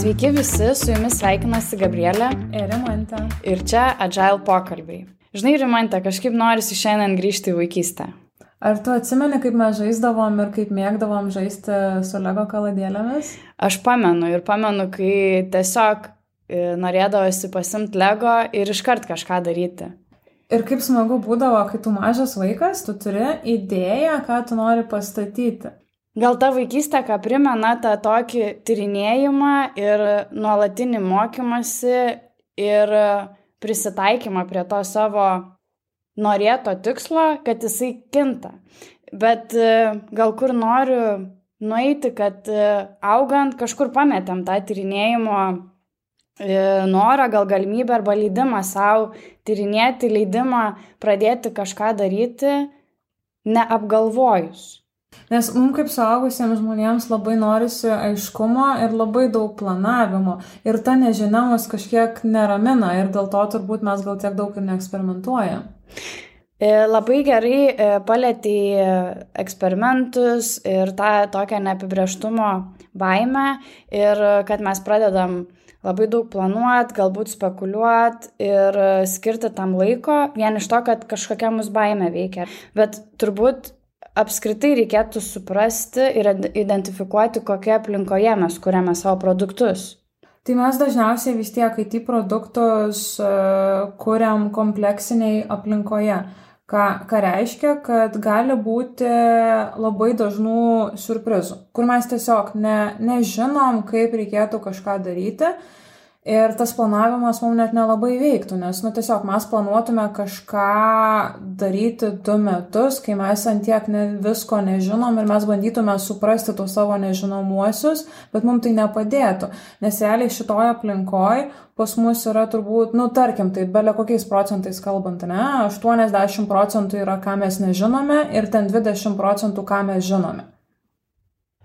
Sveiki visi, su jumis sveikinasi Gabrielė ir Rimantė. Ir čia Agile pokalbiai. Žinai, Rimantė, kažkaip norisi šiandien grįžti į vaikystę. Ar tu atsimeni, kaip mes žaisdavom ir kaip mėgdavom žaisti su Lego kaladėlėmis? Aš pamenu, kai tiesiog norėdavosi pasimti Lego ir iškart kažką daryti. Ir kaip smagu būdavo, kai tu mažas vaikas, tu turi idėją, ką tu nori pastatyti. Gal ta vaikystė, ką primena tą tokį tyrinėjimą ir nuolatinį mokymąsi ir prisitaikymą prie to savo norėto tikslo, kad jisai kinta. Bet gal kur noriu nueiti, kad augant kažkur pametėm tą tyrinėjimo norą, gal galimybę arba leidimą savo tyrinėti, leidimą pradėti kažką daryti, neapgalvojus. Nes mums kaip suaugusiems žmonėms labai norisi aiškumo ir labai daug planavimo. Ir ta nežinia mus kažkiek neramina ir dėl to turbūt mes gal tiek daug ir neeksperimentuojam. Labai gerai palietei eksperimentus ir tą tokią neapibrėžtumo baimę ir kad mes pradedam labai daug planuoti, galbūt spekuliuoti ir skirti tam laiko vien iš to, kad kažkokia mus baimė veikia. Bet turbūt apskritai reikėtų suprasti ir identifikuoti, kokie aplinkoje mes kuriame savo produktus. Tai mes dažniausiai vis tiek IT produktus kuriam kompleksiniai aplinkoje. Ką reiškia, kad gali būti labai dažnų siurprizų, kur mes tiesiog nežinom, kaip reikėtų kažką daryti. Ir tas planavimas mums net nelabai veiktų, nes tiesiog mes planuotume kažką daryti 2 metus, kai mes ant tiek visko nežinom ir mes bandytume suprasti tus savo nežinomuosius, bet mums tai nepadėtų. Nes realiai šitoje aplinkoje pas mus yra turbūt, tarkim, tai belia kokiais procentais kalbant, 80% yra, ką mes nežinome ir ten 20%, ką mes žinome.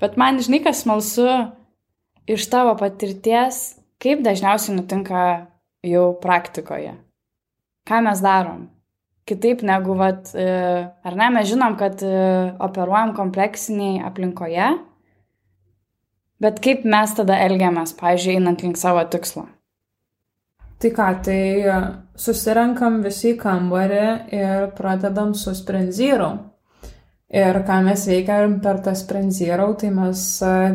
Bet man, žinai, kas smalsu iš tavo patirties, kaip dažniausiai nutinka jau praktikoje? Ką mes darom? Kitaip negu, ar ne, mes žinom, kad operuojam kompleksiniai aplinkoje, bet kaip mes tada elgiamės, pavyzdžiui, einant link savo tikslo? Tai ką, susirenkam visi į kambarį ir pradedam su Sprint Zero. Ir ką mes veikiam per tą Sprint Zero, tai mes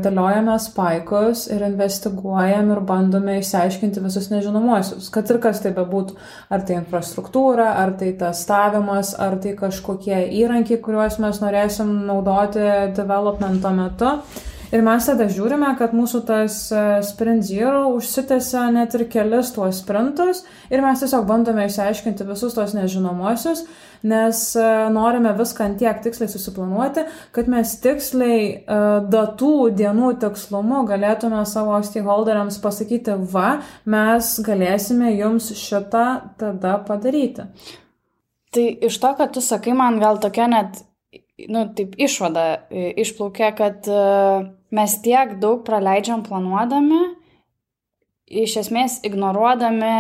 dėliojame spaikus ir investiguojam ir bandome išsiaiškinti visus nežinomuosius. Kad ir kas tai bebūtų, ar tai infrastruktūra, ar tai testavimas, ar tai kažkokie įrankiai, kuriuos mes norėsim naudoti developmento metu. Ir mes tada žiūrime, kad mūsų tas Sprint Zero užsitęsia net ir kelis tuos sprintus ir mes tiesiog bandome išsiaiškinti visus tos nežinomuosius, nes norime viską ant tiek tiksliai susiplanuoti, kad mes tiksliai datų, dienų tikslumu galėtume savo stakeholderiams pasakyti, mes galėsime jums šitą tada padaryti. Tai iš to, kad tu sakai, man gal tokia net taip išvada išplaukia, kad mes tiek daug praleidžiam planuodami, iš esmės ignoruodami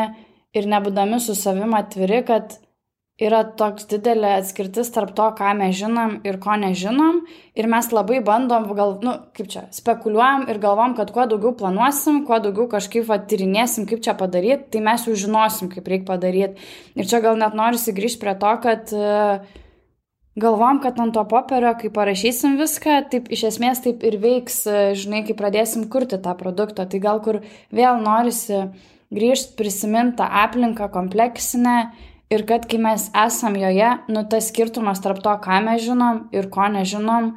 ir nebūdami su savim atviri, kad yra toks didelė atskirtis tarp to, ką mes žinom ir ko nežinom. Ir mes labai bandom, spekuliuojam ir galvom, kad kuo daugiau planuosim, kuo daugiau kažkaip tyrinėsim, kaip čia padaryti, tai mes jau žinosim, kaip reikia padaryti. Ir čia gal net norisi grįžti prie to, kad galvom, kad ant to popierio, kai parašysim viską, taip iš esmės taip ir veiks, žinai, kai pradėsim kurti tą produktą. Tai gal kur vėl norisi grįžti, prisiminti tą aplinką kompleksinę ir kad kai mes esam joje, tas skirtumas tarp to, ką mes žinom ir ko nežinom,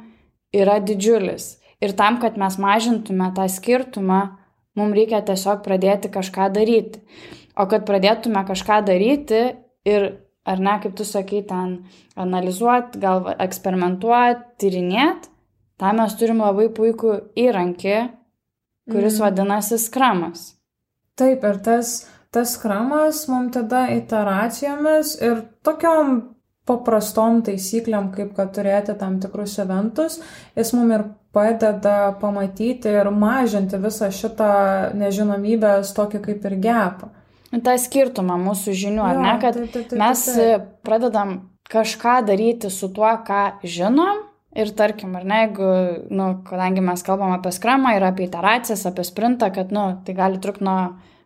yra didžiulis. Ir tam, kad mes mažintume tą skirtumą, mums reikia tiesiog pradėti kažką daryti. O kad pradėtume kažką daryti ir ar ne, kaip tu sakai, ten analizuoti, gal eksperimentuoti, tyrinėti, tam mes turim labai puikų įrankį, kuris vadinasi Scrumas. Taip, ir tas Scrumas mums tada iteracijomis ir tokiom paprastom taisyklėm, kaip kad turėti tam tikrus eventus, jis mums ir padeda pamatyti ir mažinti visą šitą nežinomybės tokį kaip ir gapą. tą skirtumą mūsų žinių, ar ne, kad mes pradedam kažką daryti su tuo, ką žinom Ir tarkim, ar ne, jeigu, kadangi mes kalbam apie skramą ir apie iteracijas, apie sprintą, kad, tai gali trukti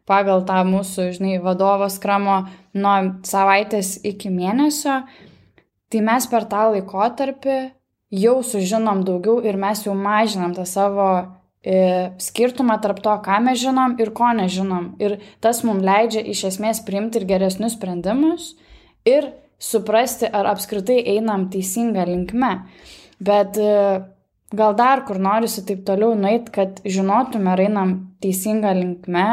pagal tą mūsų, vadovo skramo nuo savaitės iki mėnesio, tai mes per tą laikotarpį jau sužinom daugiau ir mes jau mažinam tą savo skirtumą tarp to, ką mes žinom ir ko nežinom. Ir tas mums leidžia iš esmės priimti ir geresnius sprendimus ir suprasti, ar apskritai einam teisinga linkme. Bet gal dar kur norisi taip toliau nueiti, kad žinotume, ar einam teisinga linkme,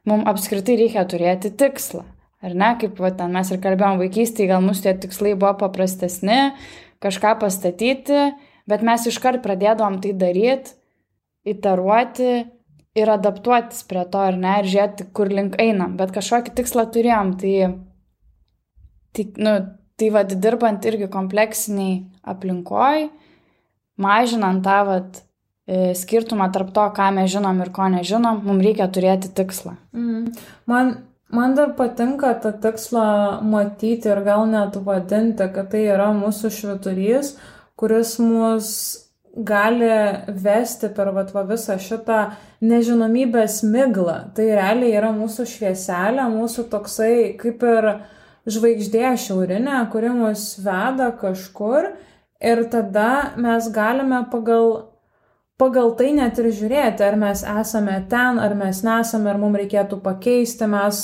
mums apskritai reikia turėti tikslą. Ar ne, kaip ten mes ir kalbėjom vaikystėje, gal mūsų tie tikslai buvo paprastesni, kažką pastatyti, bet mes iškart pradėdavom tai daryti, iteruoti ir adaptuotis prie to, ar ne, ir žiūrėti, kur link einam. Bet kažkokį tikslą turėjom, tai dirbant irgi kompleksiniai aplinkoj, mažinant tą skirtumą tarp to, ką mes žinom ir ko nežinom, mums reikia turėti tikslą. Man dar patinka tą tikslą matyti ir gal net vadinti, kad tai yra mūsų švyturys, kuris mus gali vesti per visą šitą nežinomybės miglą. Tai realiai yra mūsų švieselė, mūsų toksai kaip ir žvaigždė šiaurinė, kuri mus veda kažkur. Ir tada mes galime pagal tai net ir žiūrėti, ar mes esame ten, ar mes nesame, ar mums reikėtų pakeisti. Mes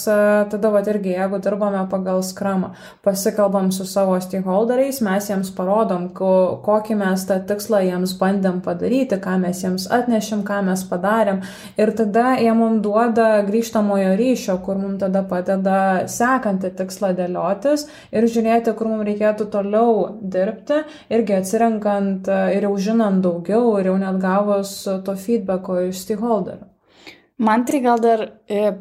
tada irgi, jeigu dirbame pagal skramą, pasikalbam su savo stakeholderiais, mes jiems parodom, kokį mes tą tikslą jiems bandėm padaryti, ką mes jiems atnešim, ką mes padarėm. Ir tada jie mums duoda grįžtamojo ryšio, kur mums tada padeda sekantį tikslą dėliotis ir žiūrėti, kur mums reikėtų toliau dirbti, irgi atsirenkant ir jau žinant daugiau ir jau net gavus to feedbacko iš stakeholderių. Man tai gal dar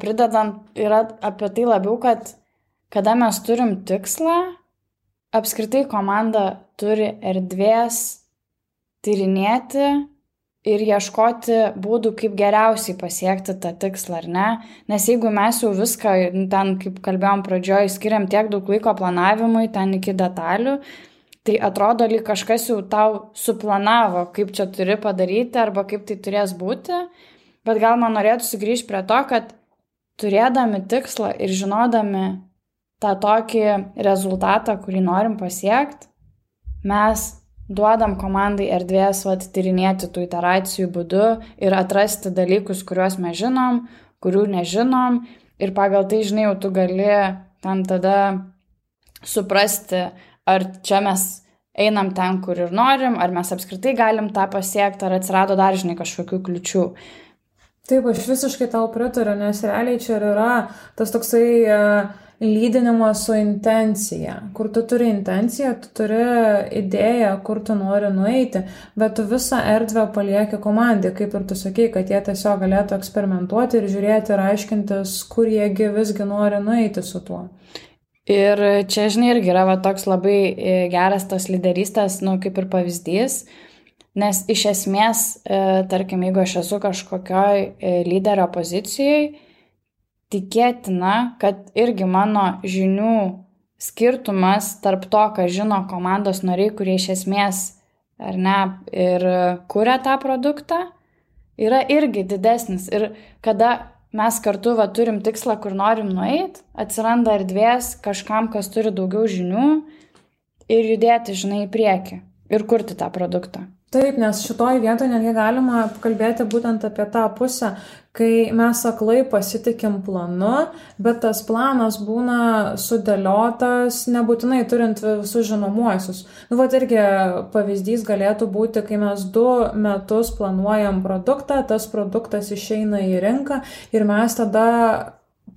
pridedant yra apie tai labiau, kad kada mes turim tikslą, apskritai komanda turi erdvės tyrinėti ir ieškoti būdų, kaip geriausiai pasiekti tą tikslą, ar ne? Nes jeigu mes jau viską, ten, kaip kalbėjom pradžioj, skiriam tiek daug laiko planavimui, ten iki detalių, tai atrodo, lyg kažkas jau tau suplanavo, kaip čia turi padaryti arba kaip tai turės būti, bet gal man norėtųsi grįžti prie to, kad turėdami tikslą ir žinodami tą tokį rezultatą, kurį norim pasiekti, mes duodam komandai erdvės tyrinėti tų iteracijų būdu ir atrasti dalykus, kuriuos mes žinom, kurių nežinom ir pagal tai, jau tu gali ten tada suprasti, ar čia mes einam ten, kur ir norim, ar mes apskritai galim tą pasiekti, ar atsirado dar, kažkokių kliučių. Taip, aš visiškai tau pritariu, nes realiai čia yra tas toksai lydinimas su intencija, kur tu turi intenciją, tu turi idėją, kur tu nori nueiti, bet tu visą erdvę palieki komandai, kaip ir tu sakei, kad jie tiesiog galėtų eksperimentuoti ir žiūrėti ir aiškintis, kur jiegi visgi nori nueiti su tuo. Ir čia, irgi yra toks labai geras tos lyderystės, kaip ir pavyzdys, nes iš esmės, tarkim, jeigu aš esu kažkokioj lyderio pozicijoje, tikėtina, kad irgi mano žinių skirtumas tarp to, ką žino komandos nariai, kurie iš esmės, ar ne, ir kuria tą produktą, yra irgi didesnis. Ir kada mes kartu turim tikslą, kur norim nueiti, atsiranda erdvės kažkam, kas turi daugiau žinių ir judėti, į priekį ir kurti tą produktą. Taip, nes šitoj vietoje netgi galima kalbėti būtent apie tą pusę, kai mes aklai pasitikim planu, bet tas planas būna sudėliotas, nebūtinai turint visus žinomuosius. Irgi pavyzdys galėtų būti, kai mes 2 metus planuojam produktą, tas produktas išeina į rinką ir mes tada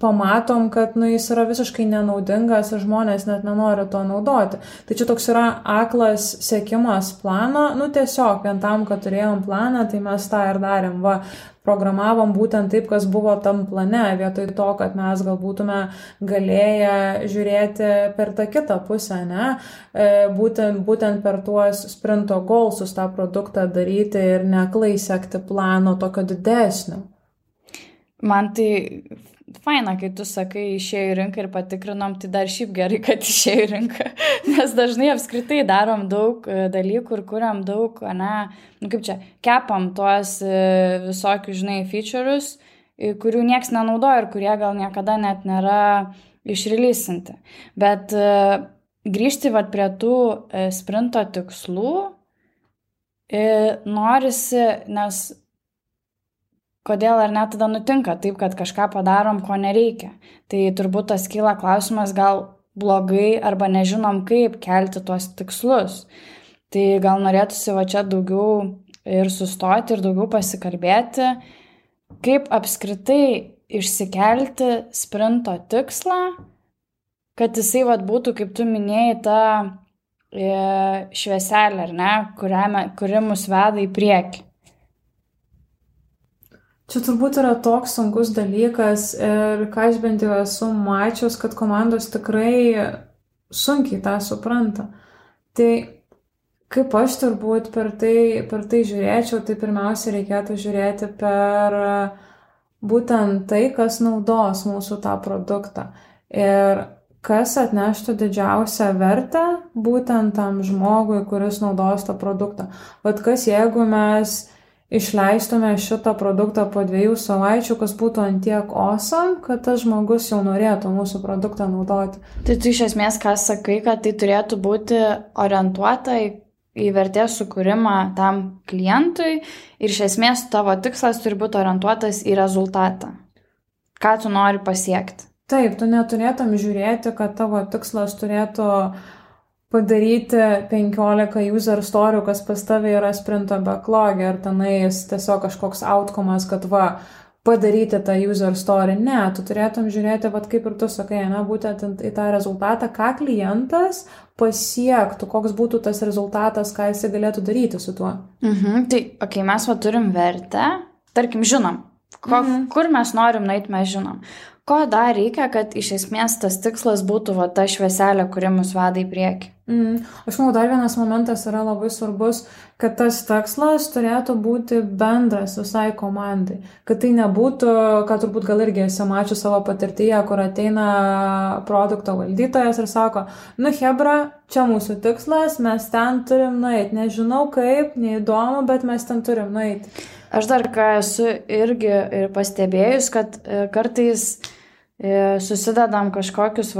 pamatom, kad jis yra visiškai nenaudingas ir žmonės net nenori to naudoti. Tai čia toks yra aklas sekimas plano, tiesiog vien tam, kad turėjom planą, tai mes tą ir darėm. Programavom būtent taip, kas buvo tam plane, vietoj to, kad mes gal būtume galėję žiūrėti per tą kitą pusę, ne? Būtent per tuos sprinto goalsus tą produktą daryti ir neaklai sekti plano tokio didesnio. Man tai faina, kai tu sakai, išėjo į rinką ir patikrinom, tai dar šiaip gerai, kad išėjo į rinką, nes dažnai apskritai darom daug dalykų ir kuriam daug, kaip čia, kepam tuos visokius, žinai, feature'us, kurių nieks nenaudoja ir kurie gal niekada net nėra išreleasinti. Bet grįžti vat prie tų sprinto tikslų norisi, nes kodėl ar net tada nutinka taip, kad kažką padarom, ko nereikia. Tai turbūt tas kyla klausimas, gal blogai arba nežinom, kaip kelti tuos tikslus. Tai gal norėtųsi va čia daugiau ir sustoti ir daugiau pasikalbėti, kaip apskritai išsikelti sprinto tikslą, kad jisai vat būtų, kaip tu minėjai, ta švieselė, ar ne, kuri mus veda į priekį. Čia turbūt yra toks sunkus dalykas ir ką aš bent jau esu mačius, kad komandos tikrai sunkiai tą supranta. Tai kaip aš turbūt per tai žiūrėčiau, tai pirmiausia reikėtų žiūrėti per būtent tai, kas naudos mūsų tą produktą ir kas atneštų didžiausią vertę būtent tam žmogui, kuris naudos tą produktą. Vat kas jeigu mes išleistume šitą produktą po 2 savaičių, kas būtų antiek awesome, kad tas žmogus jau norėtų mūsų produktą naudoti. Tai tu iš esmės, ką sakai, kad tai turėtų būti orientuota į vertės sukūrimą tam klientui ir iš esmės tavo tikslas turi būti orientuotas į rezultatą. Ką tu nori pasiekti? Taip, tu neturėtum žiūrėti, kad tavo tikslas turėtų padaryti 15 user story, kas pas tave yra sprinto backlog'e, ar tenais tiesiog kažkoks outcome'as, kad padaryti tą user story. Ne, tu turėtum žiūrėti, kaip ir tu sakai, būtent į tą rezultatą, ką klientas pasiektų, koks būtų tas rezultatas, ką jis galėtų daryti su tuo. Tai, mes turim vertę, tarkim, žinom, kur mes norim nueiti, mes žinom. Ko dar reikia, kad iš esmės tas tikslas būtų ta švieselė, kuri mus veda į priekį? Aš manau, dar vienas momentas yra labai svarbus, kad tas tikslas turėtų būti bendras visai komandai. Kad tai nebūtų, kad turbūt gal irgi esi mačius savo patirtyje, kur ateina produkto valdytojas ir sako, hebra, čia mūsų tikslas, mes ten turim nueiti. Nežinau kaip, neįdomu, bet mes ten turim nueiti. Aš dar ką esu irgi pastebėjus, kad kartais susidedam kažkokius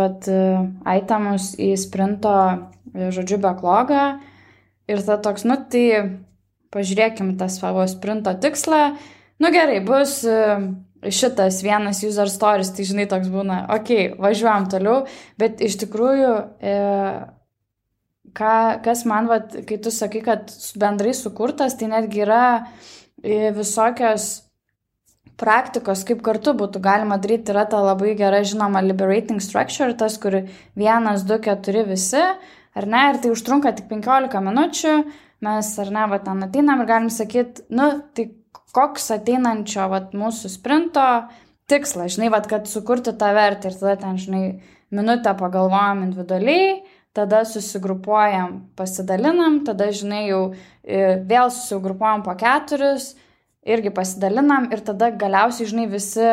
itemus į sprinto, backlog'ą ir ta toks, tai pažiūrėkim tą savo sprinto tikslą, gerai, bus šitas vienas user stories, tai žinai, toks būna, važiuojam toliau, bet iš tikrųjų, kas man, kai tu sakai, kad bendrai sukurtas, tai netgi yra visokios praktikos, kaip kartu būtų galima daryti, yra ta labai gera žinoma liberating structure, tas, kur 1, 2, 4 visi, ar ne, ir tai užtrunka tik 15 minučių, mes, ar ne, ten ateinam ir galim sakyti, tai koks ateinančio mūsų sprinto tikslas, žinai, kad sukurti tą vertę ir tada ten, žinai, minutę pagalvojam individualiai, tada susigrupuojam, pasidalinam, tada, žinai, jau vėl susigrupuojam po 4, irgi pasidalinam ir tada galiausiai, žinai, visi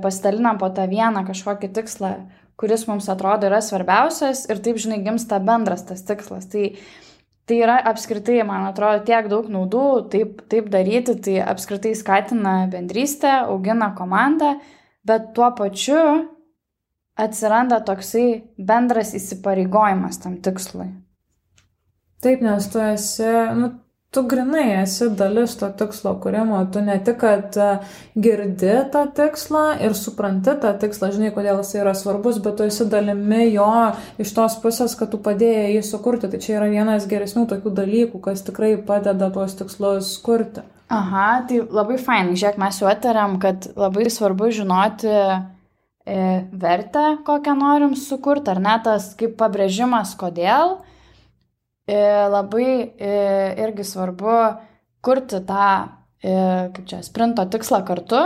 pasidalinam po tą vieną kažkokį tikslą, kuris mums atrodo yra svarbiausias ir taip, žinai, gimsta bendras tas tikslas. Tai yra apskritai, man atrodo, tiek daug naudų taip daryti, tai apskritai skatina bendrystę, augina komandą, bet tuo pačiu atsiranda toksai bendras įsipareigojimas tam tikslui. Taip, nes tu esi, tu grinai esi dalis to tikslo kūrimo, tu ne tik, kad girdi tą tikslą ir supranti tą tikslą, žinai, kodėl jis yra svarbus, bet tu esi dalimi jo iš tos pusės, kad tu padėjai jį sukurti. Tai čia yra vienas geresnių tokių dalykų, kas tikrai padeda tuos tikslus kurti. Aha, tai labai fainai. Žiūrėk, mes jau atariam, kad labai svarbu žinoti vertę, kokią norim sukurti, ar ne tas kaip pabrėžimas, kodėl. Labai irgi svarbu kurti tą, sprinto tikslą kartu,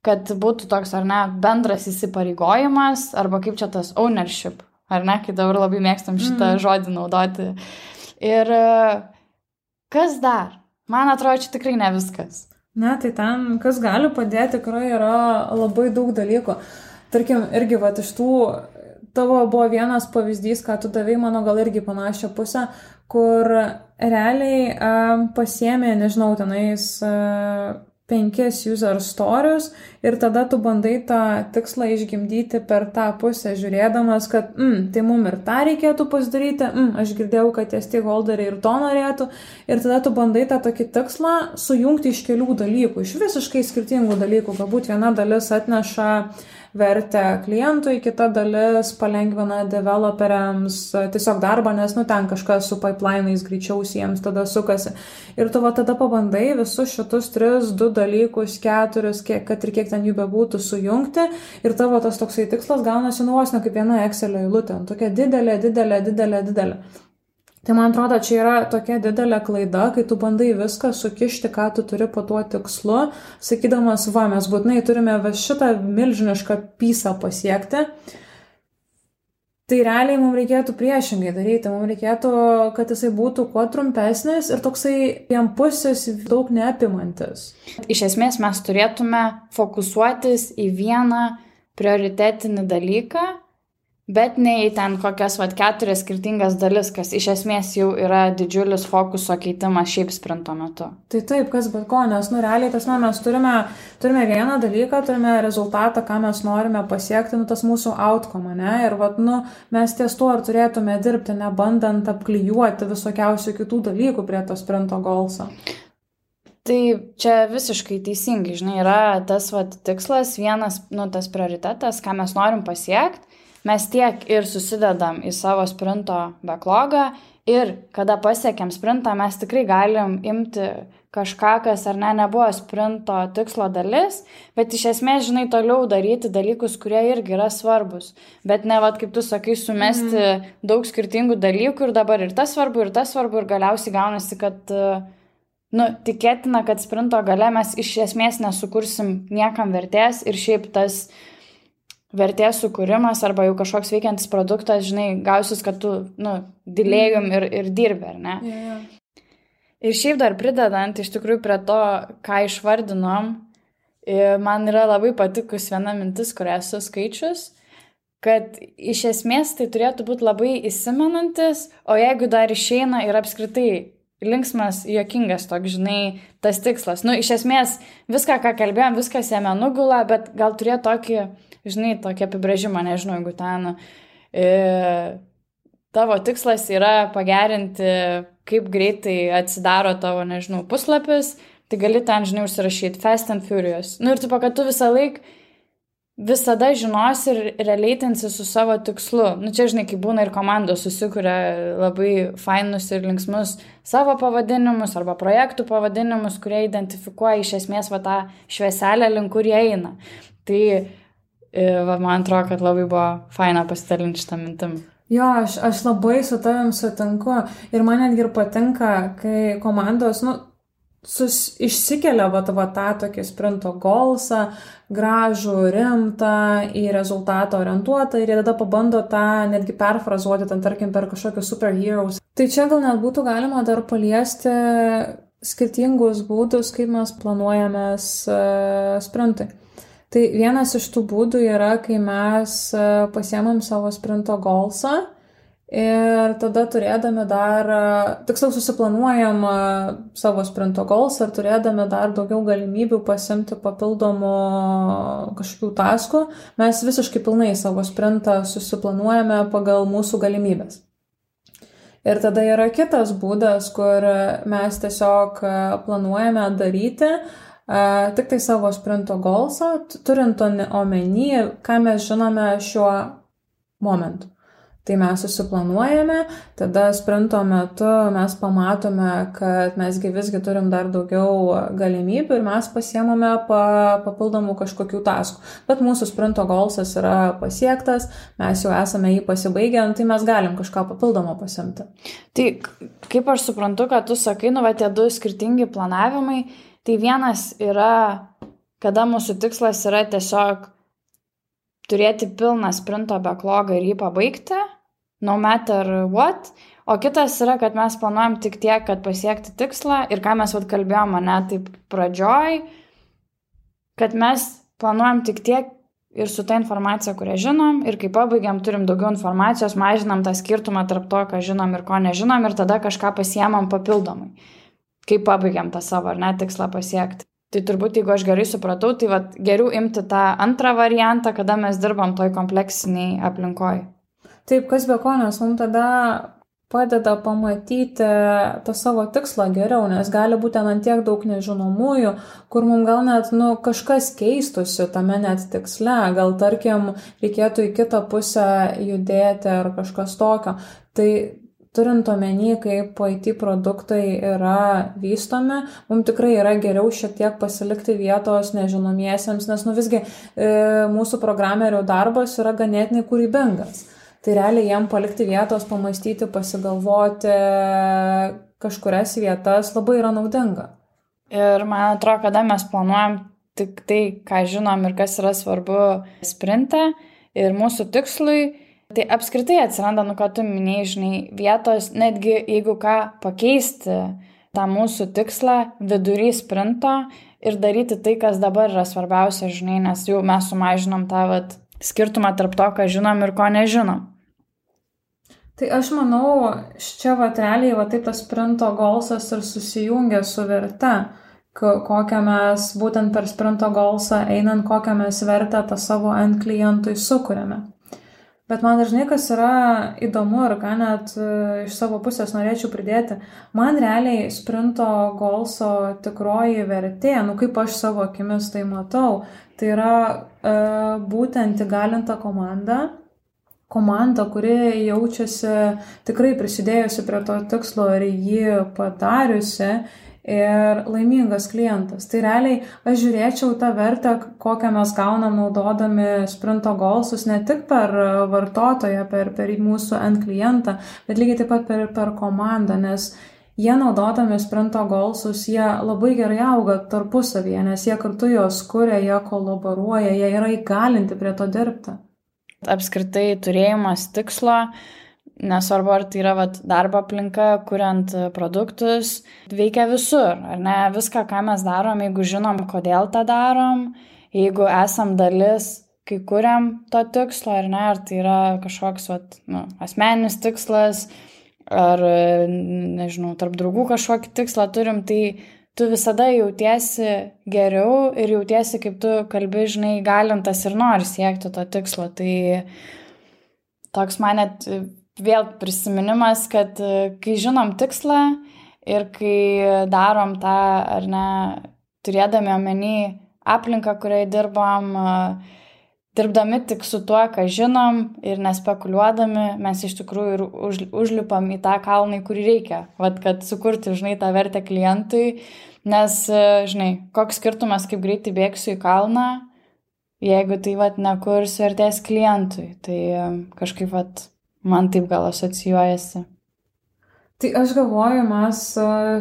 kad būtų toks, ar ne, bendras įsipareigojimas, arba kaip čia tas ownership, ar ne, kai dabar labai mėgstam šitą žodį naudoti. Ir kas dar? Man atrodo, čia tikrai ne viskas. Ne, tai ten, kas gali padėti, tikrai yra labai daug dalykų. Tarkim, irgi vat iš tų, tavo buvo vienas pavyzdys, ką tu davei, mano gal irgi panašią pusę, kur realiai pasiėmė, nežinau, tenais 5 user stories ir tada tu bandai tą tikslą išgimdyti per tą pusę, žiūrėdamas, kad tai mum ir tą reikėtų pasidaryti, aš girdėjau, kad tie stakeholderiai ir to norėtų, ir tada tu bandai tą tokį tikslą sujungti iš kelių dalykų, iš visiškai skirtingų dalykų. Galbūt viena dalis atneša vertę klientui, kita dalis palengvina developeriams tiesiog darbą, nes ten kažkas su pipeline'ais greičiausiai jiems tada sukasi. Ir tu tada pabandai visus šitus 3, 2 dalykus, 4, kad ir kiek ten jų bebūtų, sujungti, ir tavo tas toksai tikslas gaunasi vos ne kaip viena Excelio eilutė, tokia didelė. Tai man atrodo, čia yra tokia didelė klaida, kai tu bandai viską sukišti, ką tu turi po tuo tikslu, sakydamas, mes būtinai turime šitą milžinišką pysą pasiekti. Tai realiai mums reikėtų priešingai daryti, mums reikėtų, kad jisai būtų kuo trumpesnis ir toksai vienpusis, daug neapimantis. Iš esmės mes turėtume fokusuotis į vieną prioritetinį dalyką, bet ne į ten kokias 4 skirtingas dalis, kas iš esmės jau yra didžiulis fokuso keitimas šiaip sprinto metu. Tai taip, kas bet ko, nes realiai mes turime vieną dalyką, turime rezultatą, ką mes norime pasiekti, tas mūsų outcome, ne? Ir mes ties tuo ar turėtume dirbti, nebandant apklijuoti visokiausių kitų dalykų prie to sprinto goalso. Tai čia visiškai teisingai, žinai, yra tas tikslas, vienas, tas prioritetas, ką mes norim pasiekti. Mes tiek ir susidedam į savo sprinto backlogą ir kada pasiekiam sprintą, mes tikrai galim imti kažką, kas ar nebuvo sprinto tikslo dalis, bet iš esmės, žinai, toliau daryti dalykus, kurie irgi yra svarbus. Bet ne, kaip tu sakai, sumesti daug skirtingų dalykų ir dabar ir tas svarbu, ir galiausiai gaunasi, kad tikėtina, kad sprinto gale mes iš esmės nesukursim niekam vertės ir šiaip tas vertės sukūrimas arba jau kažkoks veikiantis produktas, žinai, gausis, kad tu, dilėjum ir dirbi, ar ne? Yeah. Ir šiaip dar pridedant iš tikrųjų prie to, ką išvardinom, man yra labai patikus viena mintis, kurią esu skaičius, kad iš esmės tai turėtų būti labai įsimenantis, o jeigu dar išeina ir apskritai linksmas, juokingas toks, žinai, tas tikslas. Iš esmės viską, ką kalbėjom, viskas jame nugula, bet gal turėtų tokį, žinai, tokį apibrėžimą, nežinau, jeigu ten tavo tikslas yra pagerinti, kaip greitai atsidaro tavo, nežinau, puslapis, tai gali ten, žinai, užsirašyti Fast and Furious. Ir tu, kad tu visada žinosi ir releitinsi su savo tikslu. Čia, žinai, kai būna ir komandos susikuria labai fainus ir linksmus savo pavadinimus arba projektų pavadinimus, kurie identifikuoja iš esmės tą švieselę, link kur jie eina. Tai man atrodo, kad labai buvo faina pasidalinti šitą mintim. Jo, aš labai su tavim sutinku ir man netgi ir patinka, kai komandos, išsikelia tą tokį sprinto goalsą, gražų, rimtą, į rezultatą orientuotą ir jie tada pabando tą netgi perfrazuoti, tarkim, per kažkokius superheroes. Tai čia gal net būtų galima dar paliesti skirtingus būdus, kaip mes planuojamės sprintui. Tai vienas iš tų būdų yra, kai mes pasiemam savo sprinto goalsą ir tada turėdami dar, tiksliau susiplanuojam savo sprinto goalsą ir turėdami dar daugiau galimybių pasiimti papildomų kažkokių taskų, mes visiškai pilnai savo sprintą susiplanuojame pagal mūsų galimybės. Ir tada yra kitas būdas, kur mes tiesiog planuojame daryti tik tai savo sprinto goalsą, turint omeny, ką mes žinome šiuo momentu. Tai mes susiplanuojame, tada sprinto metu mes pamatome, kad mesgi visgi turim dar daugiau galimybių ir mes pasiemame papildomų kažkokių taskų. Bet mūsų sprinto goalsas yra pasiektas, mes jau esame jį pasibaigę, tai mes galim kažką papildomo pasiimti. Tai kaip aš suprantu, kad tu sakai, tie 2 skirtingi planavimai, tai vienas yra, kada mūsų tikslas yra tiesiog turėti pilną sprinto backlogą ir jį pabaigti, no matter what, O kitas yra, kad mes planuojam tik tiek, kad pasiekti tikslą ir ką mes kalbėjom, ne, taip pradžioj, kad mes planuojam tik tiek ir su ta informacija, kurią žinom, ir kai pabaigiam, turim daugiau informacijos, mažinam tą skirtumą tarp to, ką žinom ir ko nežinom, ir tada kažką pasiemam papildomai, kai pabaigiam tą savo, ar ne, tikslą pasiekti. Tai turbūt, jeigu aš gerai supratau, tai geriau imti tą antrą variantą, kada mes dirbam toj kompleksiniai aplinkoj. Taip, kas be ko, nes mums tada padeda pamatyti tą savo tikslą geriau, nes gali būti ant tiek daug nežinomųjų, kur mums gal net kažkas keistusi tame net tiksle, gal tarkim reikėtų į kitą pusę judėti ar kažkas tokio. Tai turint omeny, kaip IT produktai yra vystomi, mums tikrai yra geriau šiek tiek pasilikti vietos nežinomiesiems, nes visgi mūsų programerių darbas yra ganėtinai kūrybingas. Tai realiai jiem palikti vietos, pamastyti, pasigalvoti kažkurias vietas labai yra naudinga. Ir man atrodo, kada mes planuojam tik tai, ką žinom ir kas yra svarbu sprinte ir mūsų tikslui, tai apskritai atsiranda, ką tu minėjai, žinai, vietos, netgi jeigu ką pakeisti tą mūsų tikslą vidury sprinto ir daryti tai, kas dabar yra svarbiausia, žinai, nes jau mes sumažinom tą skirtumą tarp to, ką žinom ir ko nežinom. Tai aš manau, čia realiai taip tas sprinto golsas ir susijungia su verte, kokią mes būtent per sprinto golsą einant, kokią mes vertę tą savo end klientui sukuriame. Bet man dažnai kas yra įdomu ir ką net iš savo pusės norėčiau pridėti, man realiai sprinto golso tikroji vertė, kaip aš savo akimis tai matau, tai yra būtent įgalinta komanda, kuri jaučiasi tikrai prisidėjusi prie to tikslo ir jį padariusi ir laimingas klientas. Tai realiai aš žiūrėčiau tą vertę, kokią mes gaunam naudodami sprinto golsus, ne tik per vartotoją, per mūsų end klientą, bet lygiai taip pat per komandą, nes jie naudodami sprinto golsus, jie labai gerai auga tarpusavyje, nes jie kartu juos kuria, jie kolaboruoja, jie yra įgalinti prie to dirbti. Apskritai turėjimas tikslo, nesvarbu ar tai yra darbo aplinka, kuriant produktus, veikia visur, ar ne? Viską, ką mes darom, jeigu žinom, kodėl tą darom, jeigu esam dalis, kai kuriam to tikslo, ar ne, ar tai yra kažkoks asmeninis tikslas, ar, nežinau, tarp draugų kažkokį tikslą turim, tai tu visada jautiesi geriau ir jautiesi, kaip tu kalbi, žinai, galintas ir nori siekti to tikslo. Tai toks man net vėl prisiminimas, kad kai žinom tikslą ir kai darom tą, ar ne, turėdami omeny aplinką, kurioje dirbdami tik su tuo, ką žinom ir nespekuliuodami, mes iš tikrųjų ir užlipam į tą kalną, kurį reikia, kad sukurti, žinai, tą vertę klientui, nes, žinai, koks skirtumas, kaip greitai bėgsiu į kalną, jeigu tai nekurs vertės klientui, tai kažkaip man taip gal asocijuojasi. Tai aš galvoju, mes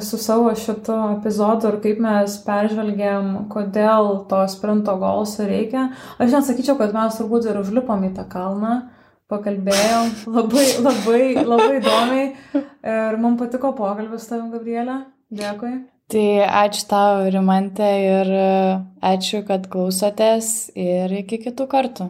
su savo šito epizodu ir kaip mes peržvelgėm, kodėl to sprinto golso reikia. Aš net sakyčiau, kad mes turbūt ir užlipom į tą kalną, pakalbėjom labai įdomiai ir man patiko pokalbis su tavim, Gabrielė. Dėkui. Tai ačiū tau, Rimantė, ir ačiū, kad klausotės ir iki kitų kartų.